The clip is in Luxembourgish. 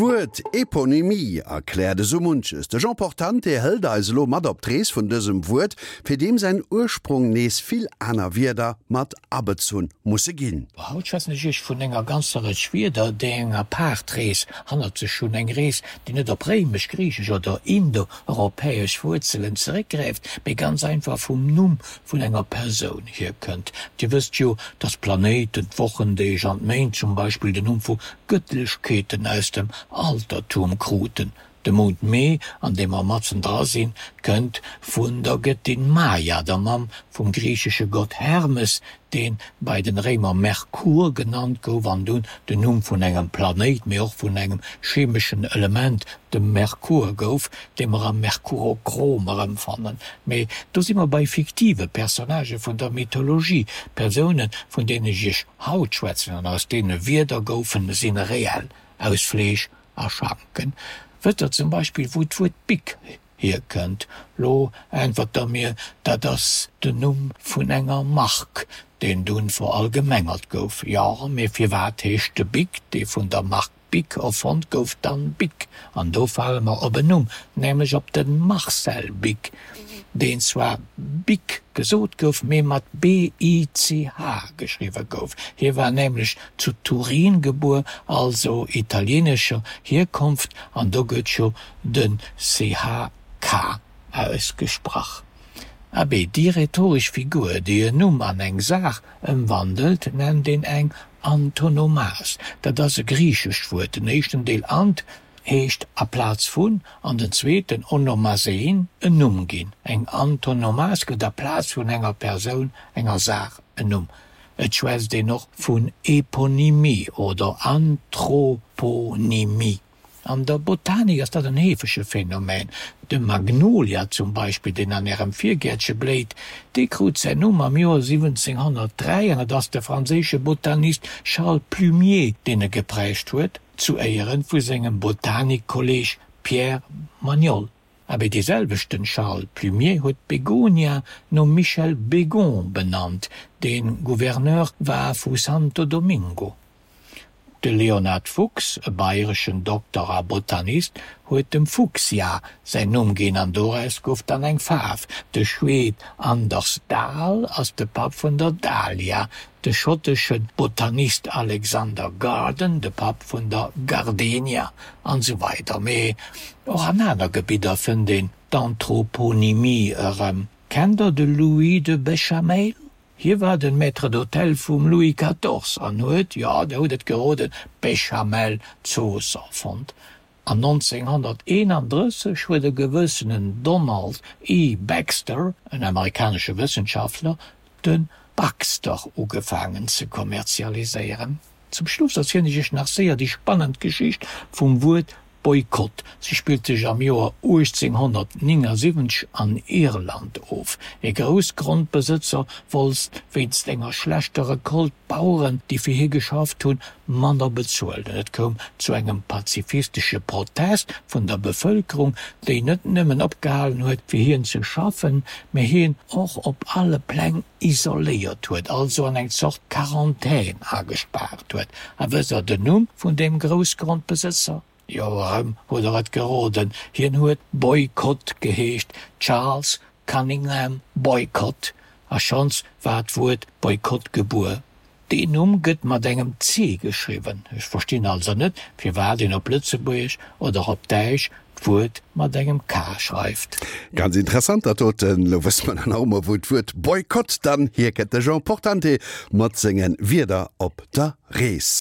D'Wuert Eponymie erkläert esou munches. De Jean Portante hëlt eis elo mat op d'Rees vun dësem Wuert, fir deem säin Ursprong nees vill aner Wierder mat abezunn musse ginn. Haut schwätzen ech iech vun enger ganzer Rëtsch Wierder, déi eng apaart Rees hannert sech hunn. Eng Rees, déi net op réimesch, griichesch oder indo-europäesch Wuerzelen zeréckgräift, mee ganz einfach vum Numm vun enger Persoun hierkënnt. Dir wësst jo, dass d'Planéiten, d'Wochendeeg an d'Méint zum Beispill den Numm vu Gëttlechkeeten aus dem Altertum kruten. De Mount Mee, an deem mer matzen dra sinn, kënnt vun der Gëttin Maia, der Mamm vum griichesche Gott Hermes, dee bei den Réimer Merkur genannt gouf an dunn den Numm vun engem Planéit, mee och vun engem chemeschen Element, dem Merkur, gouf, dee mer am Merkurochrom erëmfannen. Mee do si mer bei fiktive Personnagë vun der Mythologie. D'Persounen, vun deenen ech iech haut schwätzen an aus deene Wierder goufen, si reell, aus Fleesch a Schanken. Wësst der zum Beispill, wou d'Wuert Bic hierkënnt? Lo äntwert der mir, dat ass den Numm vun enger Mark, deen dunn verallgemengert gouf. Jo, mee firwat heescht de Bic, dee vun der Mark Bic erfonnt gouf, dann Bic? An do fale mer op en Numm, nämlech op de Marcel Bic, deen zwar Bick gesot gouf, mee mat B-I-C-H geschriwwe gouf. Hie war nämlech zu Turin gebuer, also italienescher Hierkonft, an do gëtt jo de CH K ausgesprach. Abee, déi rhetoresch Figur, déi en Numm an eng Saach ëmwandelt, nennt een eng Antonomas. Dat ass e griichescht Wuert. Den éischten Deel ant heescht aplaz vun, an den zweeten onomasein en Numm ginn. Eng Antonomas gëtt aplaz vun enger Persoun enger Saach en Numm. Et schwätzt een och vun Eponymie oder Anthroponymie. An der Botanik ass dat en heefege Phänomen. De Magnolia zum Beispill, deen an Ärem Virgäertche bléit, dee krut säin Numm am Joer 1703 an et ass de franséische Botanist Charles Plumier, deen e geprägt huet, zu Éiere vu sengem Botanikkolleeg Pierre Magnol. Abee dee selwechten Charles Plumier huet d'Begonia nom Michel Bégon benannt, dee Gouverneur war vu Santo Domingo. De Leonhard Fuchs, e bayreschen Dokter a Botanist, huet dem Fuchsia säin Numm ginn an doraus gouf dann eng Faarf. De Schweed Anders Dahl ass de Papp vun der Dahlia, de schottesche Botanist Alexander Garden de Papp vun der Gardenia an esou weider Mee och an aner Gebidder fënnt een d'Anthroponymie erëm. Kennt der de Louis de Béchameil? Hie war den Maître d'hôtel vum Louis quatorze an huet, jo, der hutt et geroden, d'Béchamel-Zooss erfonnt. An 1931 huet e gewëssenen Donald E. Baxter, en amerikanesche Wëssenschaftler, de Baxter ugefaangen ze kommerzialiséieren. Zum Schluss erzielen ech iech nach séier déi spannend Geschicht vum Wuert Boykott. Si spillt sech am Joer 1879 an Irland of. E Groussgrondbesëtzer wollt wéinst enger schlechter Recolte d'Baueren, déi fir hie geschafft hunn, manner bezuelen. Et koum zu engem pazifistesche Protest vun der Bevëlkerung, déi net nëmmen opgehalen huet, fir hien ze schaffen, mä hien och op alle Pläng isoléiert huet, also an eng Zort Quarantän agespaart huet. A wësst Der den Numm vun deem Groussgrondbesëtzer? Jo, erëm hutt Der et geroden, hien huet Boycott geheescht, Charles Cunningham Boycott. A schonns war d'Wuert Boykott gebuer. Deen Numm gëtt mat engem C geschriwwen. Ech verstinn also net, firwat een op Lëtzebuergesch oder op Däitsch d'Wuert mat engem K schreift. Ganz interessant dat doten. Lo wësse mer dann och emol wou d'Wuert Boykott dann hierkënnt. De Jean Portante mat senge Wierder op der Rees.